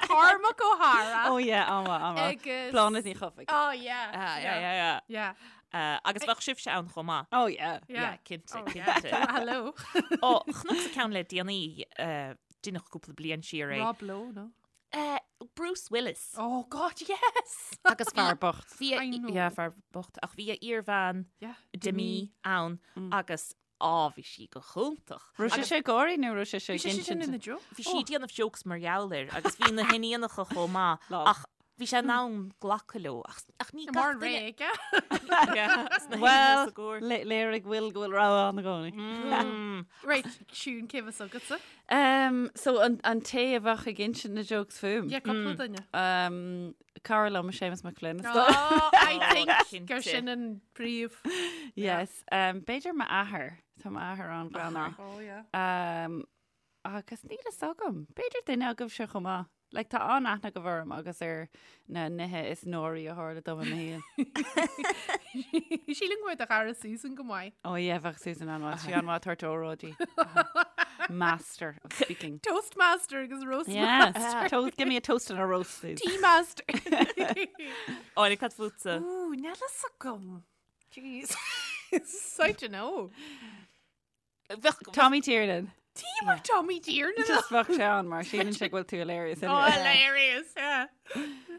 Cormac O'Hara Oh yeah, an-mhaith, an-mhaith. agus Bláthnaid Ní Chofaigh. Oh yeah. Ah, yeah, yeah, yeah. Yeah. Uh, agus bheadh sibhse ann chomh maith. Oh yeah. Yeah. cinnte, Oh, yeah. cinnte. Hello. Ó, chonacsa ceann le déanaí, uh, deineadh cúpla bliain siar é. Rob Lowe, no? Uh, Bruce Willis. Oh God, yes. Agus Fear bocht. bhí a, I know. yeah, fear bocht, ach bhí a iarbhean Yeah. Demi ann agus á bhí sí go hiontach. Raibh sé sé ag gáirí nó raibh sé sé Bhí sé sin ag ina insint? joke. Bhí sí ag déanamh jokes mar gheall air agus bhí na hiníonacha chomh maith Lol. ach bhí sé in ann glacadh leo ach, ach ní Mar gach duine réige. sna Well, hinise go. léirigh Will go bhfuil rogha ann i gcónaí. Mm. Right, Siún cé bheas agatsa? Um, so an, an té a bheadh ag insint na jokes fúm. Yeah, cúpla duine. Um, cara liom Séamus Mac Floinn. is dóigh. Oh, I think cinnte. gur sin an príomh. Yes. Um, b'fhéidir m'athair. Tá m'athair an-ghreannmhar. Oh, yeah. Um, agus níl a fhios agam. B'fhéidir duine agaibhse chomh maith. Like, tá an-aithne agaibh orm agus ar na nithe is náirí a tharla dom i mo shaol. Sílim go mbeadh do chara Susan go maith. Oh yeah, bheadh Susan an-mhaith. Sí an-mhaith ag tabhairt óráidí. Master of speaking. Toastmaster agus roast Yes. Toast, give me a toast and a roast, Susan. Tea master. Áine, cad fútsa? Ooh, níl a fhios agam. Jeez. I don't know. Bheadh Tommy Tiernan. Tí mar Tommy Tiernan. Just bheadh sé ann mar síleann sé go bhfuil tú hilarious. Oh, hilarious, yeah.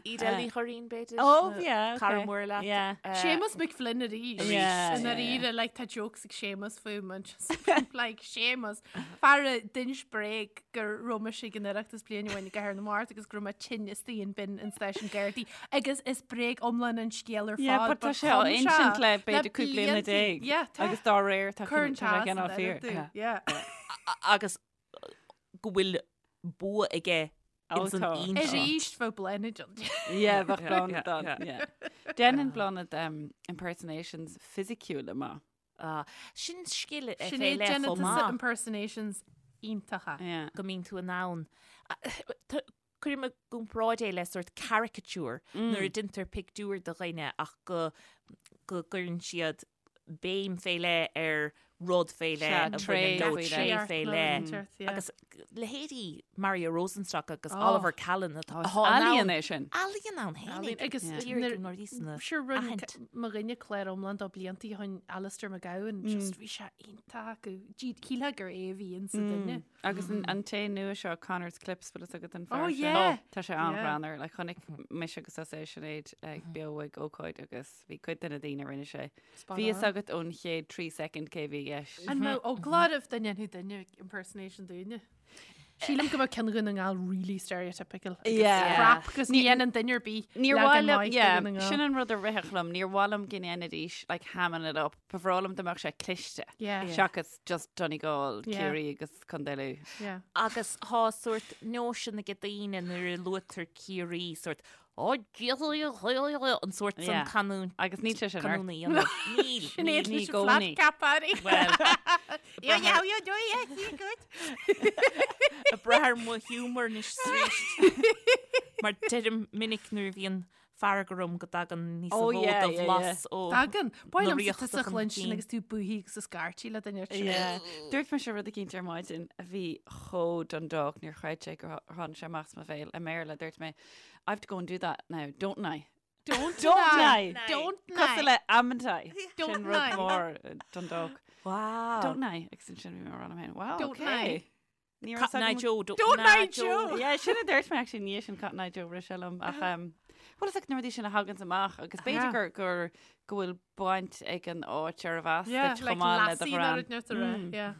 Edel Ní Churraoin b'fhéidir. Oh, yeah, okay. Cara mór leat. Yeah. Séamus McFlynn arís. Yeah, In yeah, dáiríre, like, tá jokes ag Séamus fúm and just like Séamus. Fear a d'inis bréag go raibh mise ag an Oireachtas bliain amháin i gCathair na Mart agus go raibh mé tinn istigh in bin an stáisiún Gardaí agus is bréag iomlán an scéal ar fad. Yeah, but tá sé á insint le b'fhéidir 15 bliana. Yeah, tá. Agus dá réir tá Cuireann sé cineál fíor. Yeah. Agus go bhfuil bua aige ins an insint. Arís bheadh Bláthnaid ann. Yeah, bheadh Bláthnaid ann. Yeah. Déanann Bláthnaid um, impersonations fisiciúla maith. Ah, sin scil fé Sinéad leith déanann chomh tusa maith. impersonations iontacha. Yeah. Go mbíonn tú in ann. Cuirim i gcomparáid é le sórt caricature nuair a deintear pictiúr de dhuine ach go go gcuireann siad béim fé leith ar rud fé leith a bhaineann leo, tréith fé leith. Agus leithéidí Mario Rosenstock agus Oliver Callan atá Ealaíon é sin. Ealaíon ann fhéinig. Agus sure rinne mo dhuine clár iomlán dó blianta ó shin Alistair McGowan, just bhí sé iontach acu. Shílfeá gur é a bhí insa duine. Agus an té nua seo Connor's Clips bhfuil fhios agat an fear Oh, sin? yeah. Tá sé an-ghreannmhar. Like, chonaic mise agus tusa é Sinéad ag beo ag ócáid agus bhí cuid de na daoine a rinne sé. Spot Bhí fhios on. agat ón chéad 3 second cé bhí i gceist. An mbeadh eagla oraibh dá ndéanfadh duine impersonation dúinne? Sílim go mbeadh ceann Dhún na nGall really stereotypical. Agus Yeah. crap, agus ní dhéanann duine ar bith Níor leagan mhaith liom, maith de yeah, Dhún na nGall. sin an rud a rithfeadh liom, níor mhaith liom go ndéanfaidís, like, hamming it up. Ba bhreá liom dá mbeadh sé cliste. Yeah. Seachas just Donegal, Yeah. Ciarraí agus Contae Lú. Yeah. Agus tá sórt nóisean ag daoine nuair a luaitear Ciarraí sórt "Ó, Dia, an sórt san Yeah. canúint. Agus níl sé sin ort. Canúna a dhéanamh. Níl. Sinéad ní leis an gcónaí. flat cap airí. Well, Yeah, yeah, yeah, yeah, yeah, good. ag brath ar mo humour anois is arís. Mar deirim minic nuair a bhíonn fearg orm go dtagann níos Oh, mó yeah, de yeah, bhlas ó Tagann. Ba na mhaith liomsa ríochta tusa a chun chluinstin cinn. agus tú buí agus ag scairtigh le duine ar sin. Yeah. Dúirt mise rud eicínt ar maidin a bhí chomh Dundalk, níor chreid sé gur tháinig sé amach as mo bhéal i mBéarla. Dúirt mé, I've to go and do that now, don't I? Don't Don't I? I? Don't Cosúil I? le amn't I? Don't Sin rud I? mór uh, Dundalk. Wow. Don't I? Agus ansin bhí mé ag rá liom féin, wow, Don't okay. I? Ní raibh Cotton Eye agam- Joe. Don't, Don't Eye I Joe? Yeah, sin a dúirt mé actually ní sin Cotton Eye Joe rith sé liom ach um, bhfuil fhios agat na rudaí sin a thaganns amach agus b'fhéidir Yeah. gur gur go bhfuil baint ag an áit arbh as Yeah, duit like chomh maith le do lassie ghreann. ná rud neart a rá, yeah.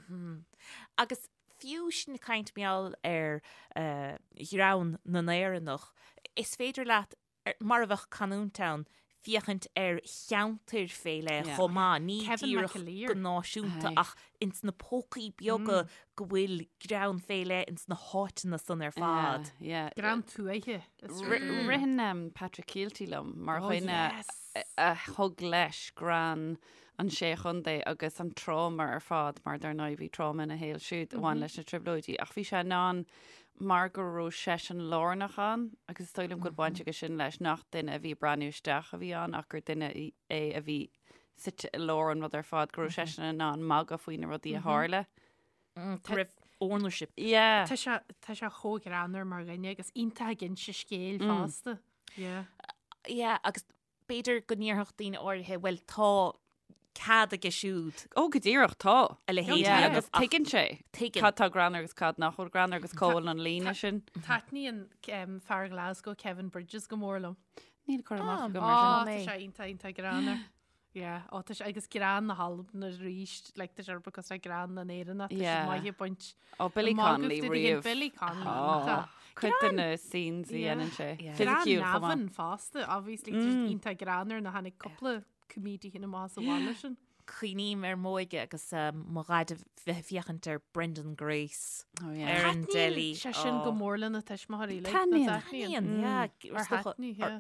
Agus fiú sin ag caint mar gheall ar eh, ghreann na nÉireannach, is féidir leat mar a bheadh canúint ann, féachaint ar cheantair fé leith Yeah. chomh maith, ní Kevin díreach McAleer. go náisiúnta Aye. ach ins na pócaí beaga go bhfuil greann fé leith ins na háiteanna san ar fad. Yeah, yeah. Greann tuaithe. is Ri- rud. Ritheann um, Patrick Kielty liom mar Oh, dhuine yes. a thug leis greann an sé chontae agus an tráma ar fad mar dar ndóigh bhí tráma ina shaol siúd a bhain leis na trioblóidí ach bhí sé in ann mar go raibh seisean lárnach ann agus is dóigh liom go bhfuil baint aige sin leis nach duine a bhí ag breathnú isteach a bhí ann ach gur duine é a bhí suite i lár an rud ar fad, go raibh seisean in ann magadh faoi na rudaí a tharla. Go raibh ownership. Yeah. Tá sé tá sé chomh greannmhar mar dhuine agus iontach ag inse scéil fosta. Yeah. Yeah, agus B'fhéidir go ndéarfadh daoine áirithe, bhuel, tá cead aige siúd. Ó, go díreach, tá. A leithéid Yeah, a dhéanamh, agus ach tuigeann sé. Tuigeann. Cad tá greannmhar agus cad nach bhfuil greannmhar agus cá bhfuil an líne sin. Taitníonn um, fear Glasgow Kevin Bridges go mór liom. Níl cur amach agam Ó, ar sin. tá sé iontach iontach greannmhar. Yeah, ó, tá sé agus greann na hAlban arís, like, tá sé because tá greann na nÉireannach, tá sé Yeah. maith ag baint. Ó, Billy An magadh Connolly de dhéan riamh. Billy Connolly, Ó, tá. Cuid de na scenes a Yeah. dhéanann sé. Yeah. Greann Fisiciúil chomh maith. Navan fosta, obviously, tá siad iontach greannmhar na tháinig cúpla comedian amach sa bhaile sin. Cuimhním ar m'óige agus mo dhaid a bheith ag féachaint ar Brendan Grace Oh, yeah. ar an dteilí. Taitníonn sé sin go mór lena tuismitheoirí, like, Taitníonn. nó taitníonn. Taitníonn, yeah. Ar thaitní, yeah.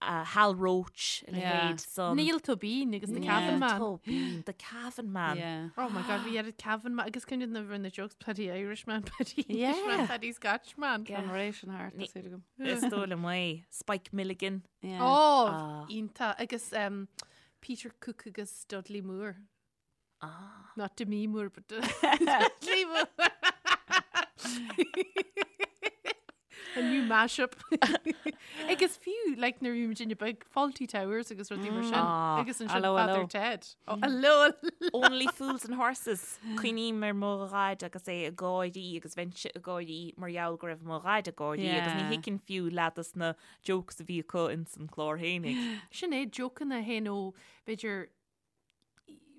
Hal Roach, a leithéid san. Niall Tóibín agus The Cavan Man. Tóibín, The Cavan Man. Yeah. Oh my God, bhí oiread Cavan Man agus cuimhnigh na rinne jokes Paddy Irishman, Paddy Englishman, Paddy Scotchman. An ré sin thart, tá súil agam. Is dóigh liom é. Spike Milligan. Yeah. Oh, Ah. iontach. Agus um, Peter Cook agus Dudley Moore. Ah. Not Demi Moore, but Dudley Moore. A new mashup. Agus fiú, like, nuair a bhí muidinne beag, Fawlty Towers agus rudaí mar sin. Ah. Agus ansin Allo, Father allo. Ted. Oh, allo, allo. Only Fools and Horses. Cuimhním ar mo dhaid agus é ag gáirí agus bheinnse ag gáirí mar gheall go raibh mo dhaid ag gáirí agus ní Yeah. thuigfinn fiú leath dos na jokes a bhí acu ins an clár fhéinig. Sin é, jokeanna fhéin ó, b'fhéidir,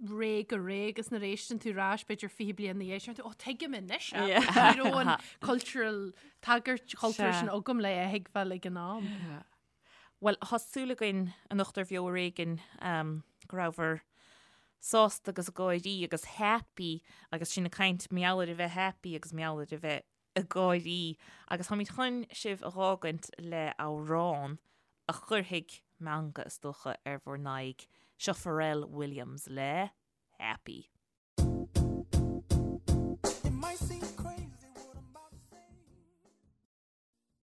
ré go ré agus nuair a éisteann tú ar ais b'fhéidir 20 bliain ina dhiaidh sin, ó tuigim anois é. Yeah. Ní raibh an cultural tagairt chultúrtha Sea. sin agam le a thuigbheáil ag an am. Bhuel, tá súil againn anocht ar Bheo Ar Éigean um, go rabhabhair sásta agus ag gáirí agus happy agus sinn ag caint mar gheall ar a bheith happy agus mar gheall ar a bheith ag gáirí agus táimid chun sibh a dh'fhágaint le amhrán a chuirfidh meangadh is dócha ar bhur n-aghaidh. Seo Pharrell Williams le Happy.